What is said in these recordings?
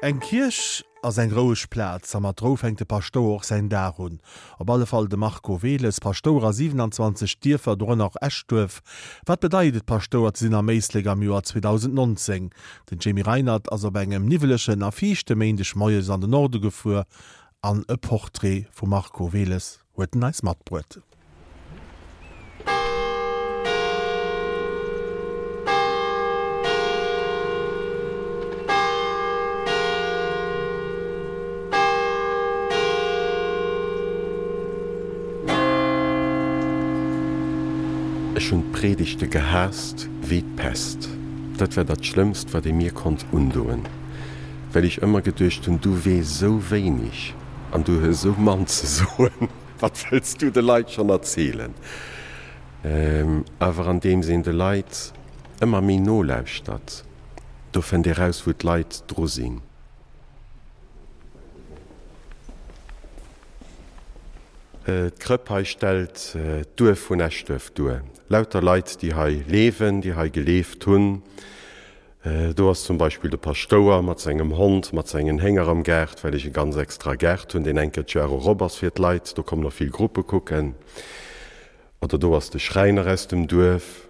Eng Kierch ass eng roueg Plaz a mat Rou fänkt de Paschtouer och säin Dag un. Op alle Fall de Marco Wehles, Paschtouer a 27 Dierfer, dorënner och Eschduerf. Wat bedeit et Paschtouer ze sinn am Éislek am Joer 2019? Den Jamie Reinert ass op engem niwwelegen a fiichte Méindeg moies an den Norde gefuer an e Portrait vum Marco Wehles huet en eis matbruet. Ech hunn d'Predigte gehaasst wéi d'Pest. Dat war dat Schlëmmst, wat ee mir konnt undoen, well ech ëmmer geduecht hunn, Du weess esou wéineg an du hues esou mann ze soen. Wat wëlls du de Leit schonn erzielen? Awer andeems een de Leit ëmmer méi nolauschtert, do fënnt ee raus, wou d'Leit dru sinn. D'Krëpp hei stellt d'Duerf vun Eschduerf duer. Lauter Leit, déi hei leewen, déi hei geleeft hunn. Do ass zum Beispill de Paschtouer mat sengem Hond, mat sengen Hénger am Gaart, well ech e ganz extra Gaart hunn, deen eng Kéier d'Joer erop ass fir d'Leit. Do kommen och vill Gruppe kucken. Oder do ass de Schräiner aus dem Duerf.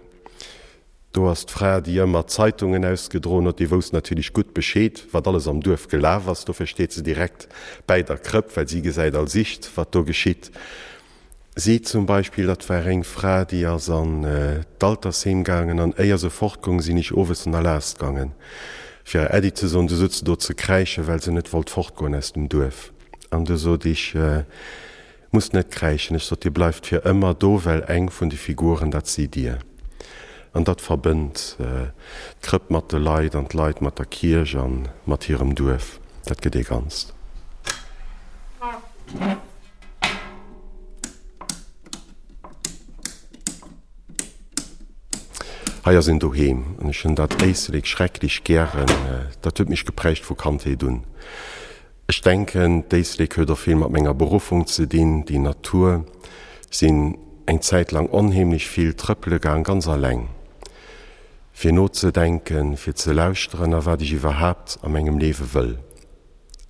Do ass d'Fra, déi ëmmer d'Zeitungen ausgedroen huet. Déi wousst natierlech gutt Bescheed, wat alles am Duerf gelaf ass. Dofir steet se direkt bäi der Krëpp, well si gesäit als ischt, wat do geschitt. Si zum Beispill, dat war eng Fra, déi ass an d'Altersheem gaangen an éier se fortgoung, sinn ech owes an Erlaass gaangen, fir hir Äddi ze soen. Du sot se do ze kräischen, well se net wollt fortgoen aus dem Duerf. An du sot ech, Musst net kräischen. Ech sot, Dir bleift fir ëmmer do, well eng vun de Figuren, dat sidd Dir. An dat verbënnt d'Krëpp mat de Leit an d'Leit mat der Kierch a mat hirem Duerf. Dat gëtt ee Ganzt. Hei ass een doheem an ech hunn dat Éislek schrecklech gären. Dat huet mech geprägt vu Kandheet un. Ech denken, d'Éislek huet och vill mat menger Beruffung ze dinn, déi Natur. Sinn eng Zäit lang onheemlech vill trëppele gaang, ganz alleng, fir nozedenken, fir ze lauschteren a wat ech iwwerhaapt a mengem Liewe wëll.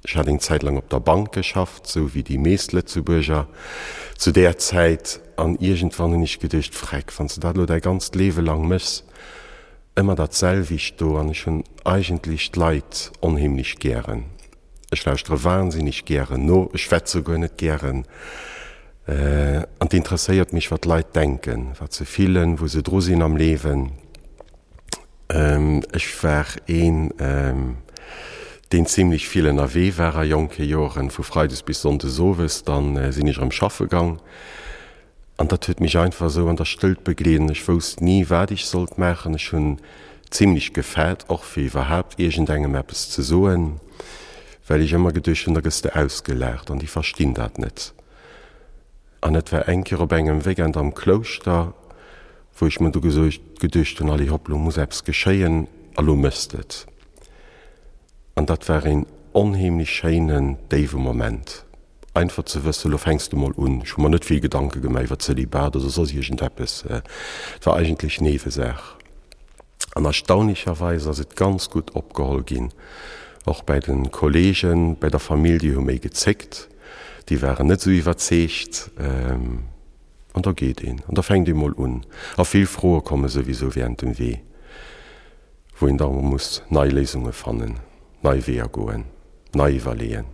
Ech hat eng Zäit lang op der Bank geschafft, sou wéi déi meescht Lëtzebuerger zu där Zäit, an iergendwann hunn ech geduecht, Freck, wann s de dat elo däi ganzt Liewe lang méchs, ëmmer dat selwecht do, an ech hunn eigentlech d'Leit onheemlech gären. Ech lauschtere wahnsinneg gären no, ech schwätze guer net gären, an 't interesséiert mech, wat d'Leit denken, wat se fillen, wou se dru sinn am Liewen. Ech war een, deen zimlech vill ënnerwee war a jonke Joren, vu freides bis sonndes owes. Dann sinn ech erëm schaffe gang an dat huet mech einfach esou an der Stëllt begleet an ech wousst ni, wat ech sollt maachen. Ech hunn zimlech gefaart och fir iwwerhaapt iergendengem eppes ze soen, well ech ëmmer geduecht hunn, da gëss de ausgelaacht an déi verstinn dat net. An et war eng Kéier op engem Weekend am Klouschter, wou ech mer du geduecht hunn, allez hopp, lo muss eppes geschéien a lo méchs de et. An dat war een onheemlech schéinen, déiwe Moment, einfach ze wëssen, lo fänks de mol un. Ech hu mer net vill Gedanke gemaach iwwer Zölibat oder soss iergendeppes, et war eigentlech Niewesaach. An erstaunlicherweis ass et ganz gutt opgeholl ginn, och bäi de Kollegen, bäi der Famill, déi hu méi gezéckt, déi waren net esou iwwerzeegt. An da geet een, an da fänkt ee mol un. A vill Froe komme souwisou während dem Wee, wou een da muss nei Léisunge fannen, nei Weeër goen, nei iwwerleeën.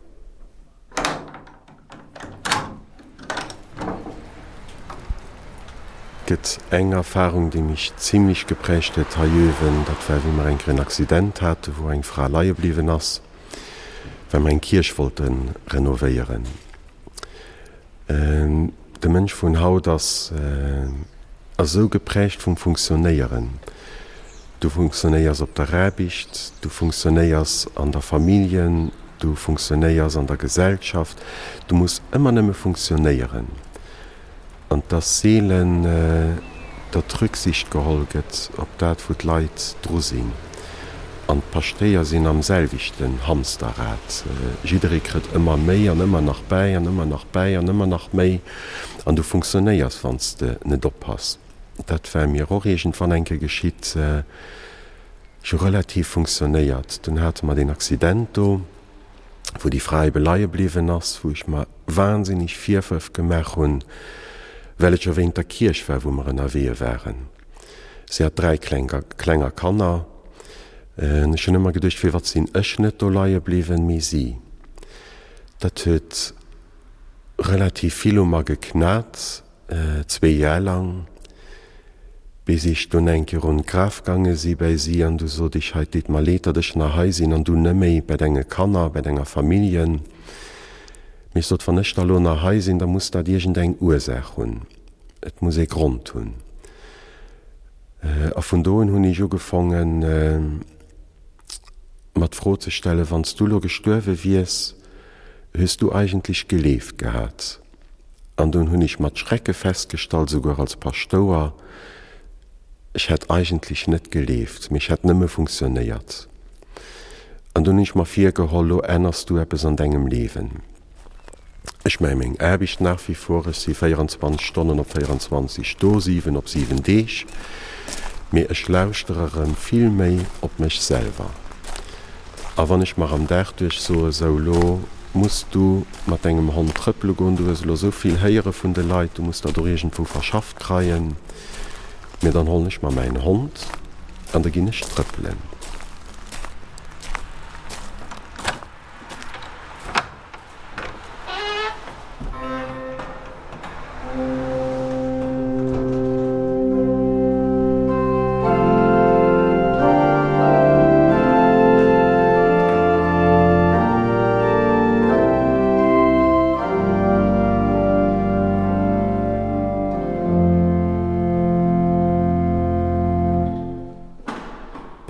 Et gëtt eng Erfarung, déi mech zimlech geprägt huet hei uewen, dat war wéi mer eng Kéier en Accident hate wou eng Fra leie bliwwen ass, well mer eng Kierch wollte renovéieren. De Mënsch vun haut ass esou geprägt vum Funktionéieren. Du funktionéiers op der Aarbecht, du funktionéiers an der Familljen, du funktionéiers an der Gesellschaft, du muss ëmmer nëmme funktionéieren. An 't ass seelen, datt Rücksicht geholl gëtt op dat, wou d'Leit dru sinn. An d'Paschtéier sinn am selwechten Hamsterrad. Jidderee kritt ëmmer méi an ëmmer nach bäi an ëmmer nach bäi an ëmmer nach méi. An du funktionéiers, wann s de net oppass. Dat war mir och iergendwann eng Kéier geschitt. Ech hu relativ funktionéiert. Dunn hate mer deen Accident do, wou déi Fra ebe leie bliwwen ass, wou ech mer wahnsinnig Virwërf gemaach hunn, well et jo wéint der Kierch war, wou mer ënnerwee waren. Si hat 3 kleng, klenger Kanner. Ech hunn ëmmer geduecht, firwat sinn ech net do leie bliwwen, mee si. Dat huet relativ vill u mer geknat. Zwee Jar lang, bis ech dunn eng Kéier un d'Graf gaange si bäi si, an du sot ech, Hei, 't deet mer leed, datt ech nach hei sinn an du neméi bäi denge Kanner, bäi denger Familljen. Mee ech sot, wann ech da lo nach hei sinn, da muss dat iergend eng Ursaach hunn, et muss ee Grond hunn. A vun do un hunn ech ugefongen, mer d'Fro ze stellen, Wann s du lo gestuerwe wiers, hues du eigentlech geleeft gehat? An dunn hunn ech mat Schrecke festgestallt, souguer als Paschtouer, ech hätt eigentlech net geleeft, mee ech hätt nëmme funktionéiert. An dunn hunn ech mer virgeholl, lo änners du eppes an dengem Liewen. Ech maache meng Aarbecht nach wie vor, ech si 24 Stonnen op 24 do, 7 op 7 Deeg, mee ech lauschtere erëm vill méi op mech selwer. A wann ech mer am Dag duerch soe, sou lo muss du mat dengem Hond trëppele goen, du hues elo sou vill héiere vun de Leit, du muss dat och iergendwou verschafft kreien, mee dann hollen ech mer mäin Hond an da ginn ech trëppelen.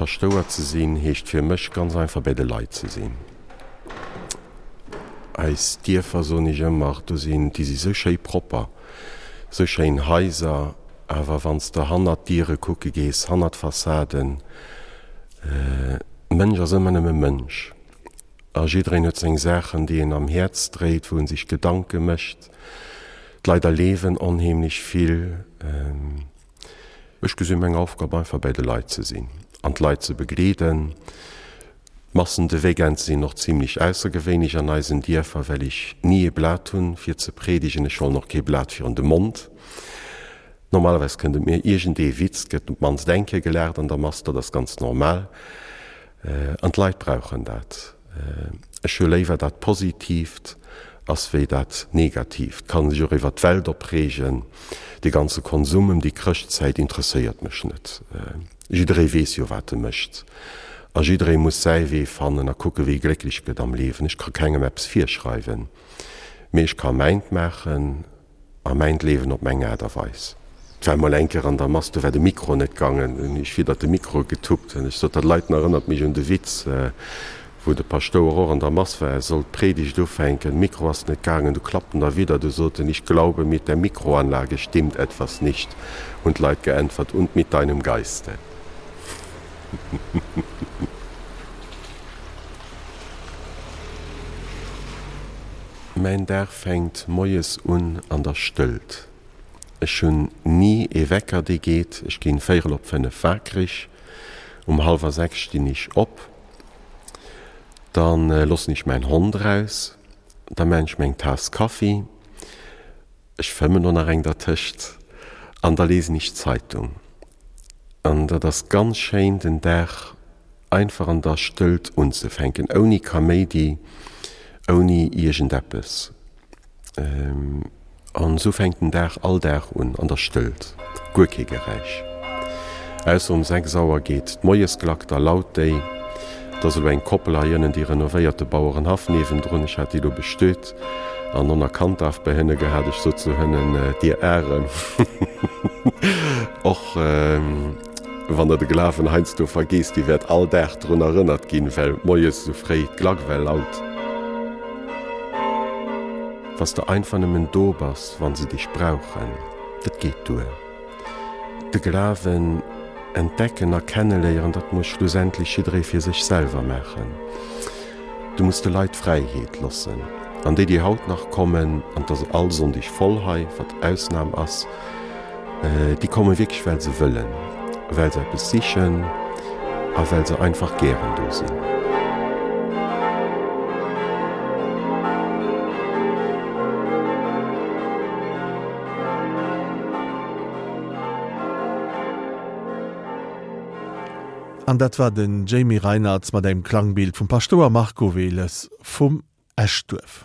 Paschtouer ze sinn heescht fir mech ganz einfach bäi de Leit ze sinn. Eis Dierfer, soen ech ëmmer, do sinn, déi si sou schéi propper, sou schéin Haiser, awer wann s de hannert d'Diere kucke gees, hannert d'Fassaden, Mënsch ass ëmmer nëmme Mënsch a jiddereen huet seng Saachen, déi en am Häerz dréit, wou en sech Gedanke mécht. D'Leit erleewen onheemlech vill. Ech gesinn meng Aufgab einfach bäi de Leit ze sinn an d'Leit ze begleeden. D'Massen de Weekend sinn och zimlech aussergewéinlech an eisen Dierfer, well ech ni ee Blat hunn fir ze predigen. Ech hollen och kee Blat virun de Mond. Normalerweis kënnt et mir iergend ee Witz, gëtt op d'mannst eng Kéier gelaacht an der Mass, dat ass ganz normal. An d'Leit brauchen dat. Ech hu léiwer dat Positiivt ass wéi dat Negatiivt. Kann sech och iwwer d'Welt opreegen. Dee ganze Konsum ëm déi Chrëschtzäit interesséiert mech net. Jidderee weess jo wat e mécht. A jidderee muss säi Wee fannen a kucke wéi e glécklech gëtt am Liewen. Ech ka kengem eppes virschreiwen, mee ech ka mäint maachen. A mäint Leewen op meng Aart a Weis. Et war emol eng Kéier an der Mass, do war de Mikro net gaangen. Hunn ech widder de Mikro getuppt. An ech sot, dat Leiten erënnert mech un de Witz, wou de Paschtouer och an der Mass war, e sollt d'Predigt ufänken, Mikro ass net gaangen, du klappt en derwidder, du sot en, Ich glaube, mit der Mikroanlage stimmt etwas nicht. Hunn d'Leit geäntwert, Und mit deinem Geiste. Mäin Dag fänkt moies un an der Stëllt. Ech hunn ni ee Wecker dee geet. Ech ginn véierel op 5 wakereg. Um hallwer 6 stinn ech op. Dann loossen ech mäin Hond eraus. Da maan ech meng Taass Kaffi. Ech fëmmen och nach eng dertëscht. An da lesen ech d'Zeitung. An dat ass ganz schéin den Dag einfach an der Stëllt unzefänken, ouni Kaméidi, ouni iergendeppes. An esou fänkt den Dag all Dag un, an der Stëllt, guer kee Geräisch. Ausser um 6 Auer geet d'Moiesklack, da laut déi. Et ass elo eng Koppel hei ënnen, déi renovéiert de Bauerenhaff niewendrun, ech hat déi elo bestöt an on a Kanddaf bei hënne gehat. Ech sot zu hënnen, Dir Arem, och wann der de Glawen heiansdo vergeesst, Dir wäert all Dag drun erënnert ginn, well moies esou fréi d'Klack well laut. Wa s de einfach nëmmen do bass, wa se dech brauchen, dat geet duer. De Glawen entdecken a kenneléieren, dat muss schlussendlech jidderee fir sech selwer maachen. Du muss de Leit d'Fräiheet loossen. An déi, déi haut nach kommen, an et ass all Sonndeg voll hei, wat Ausnam ass, déi komme wierklech, well se wëllen, well se eppes sichen. A well se einfach gären do sinn. An dat war den Jamie Reinartz mat engem Klangbild vum Paschtouer Marco Wehles vum Eschduerf.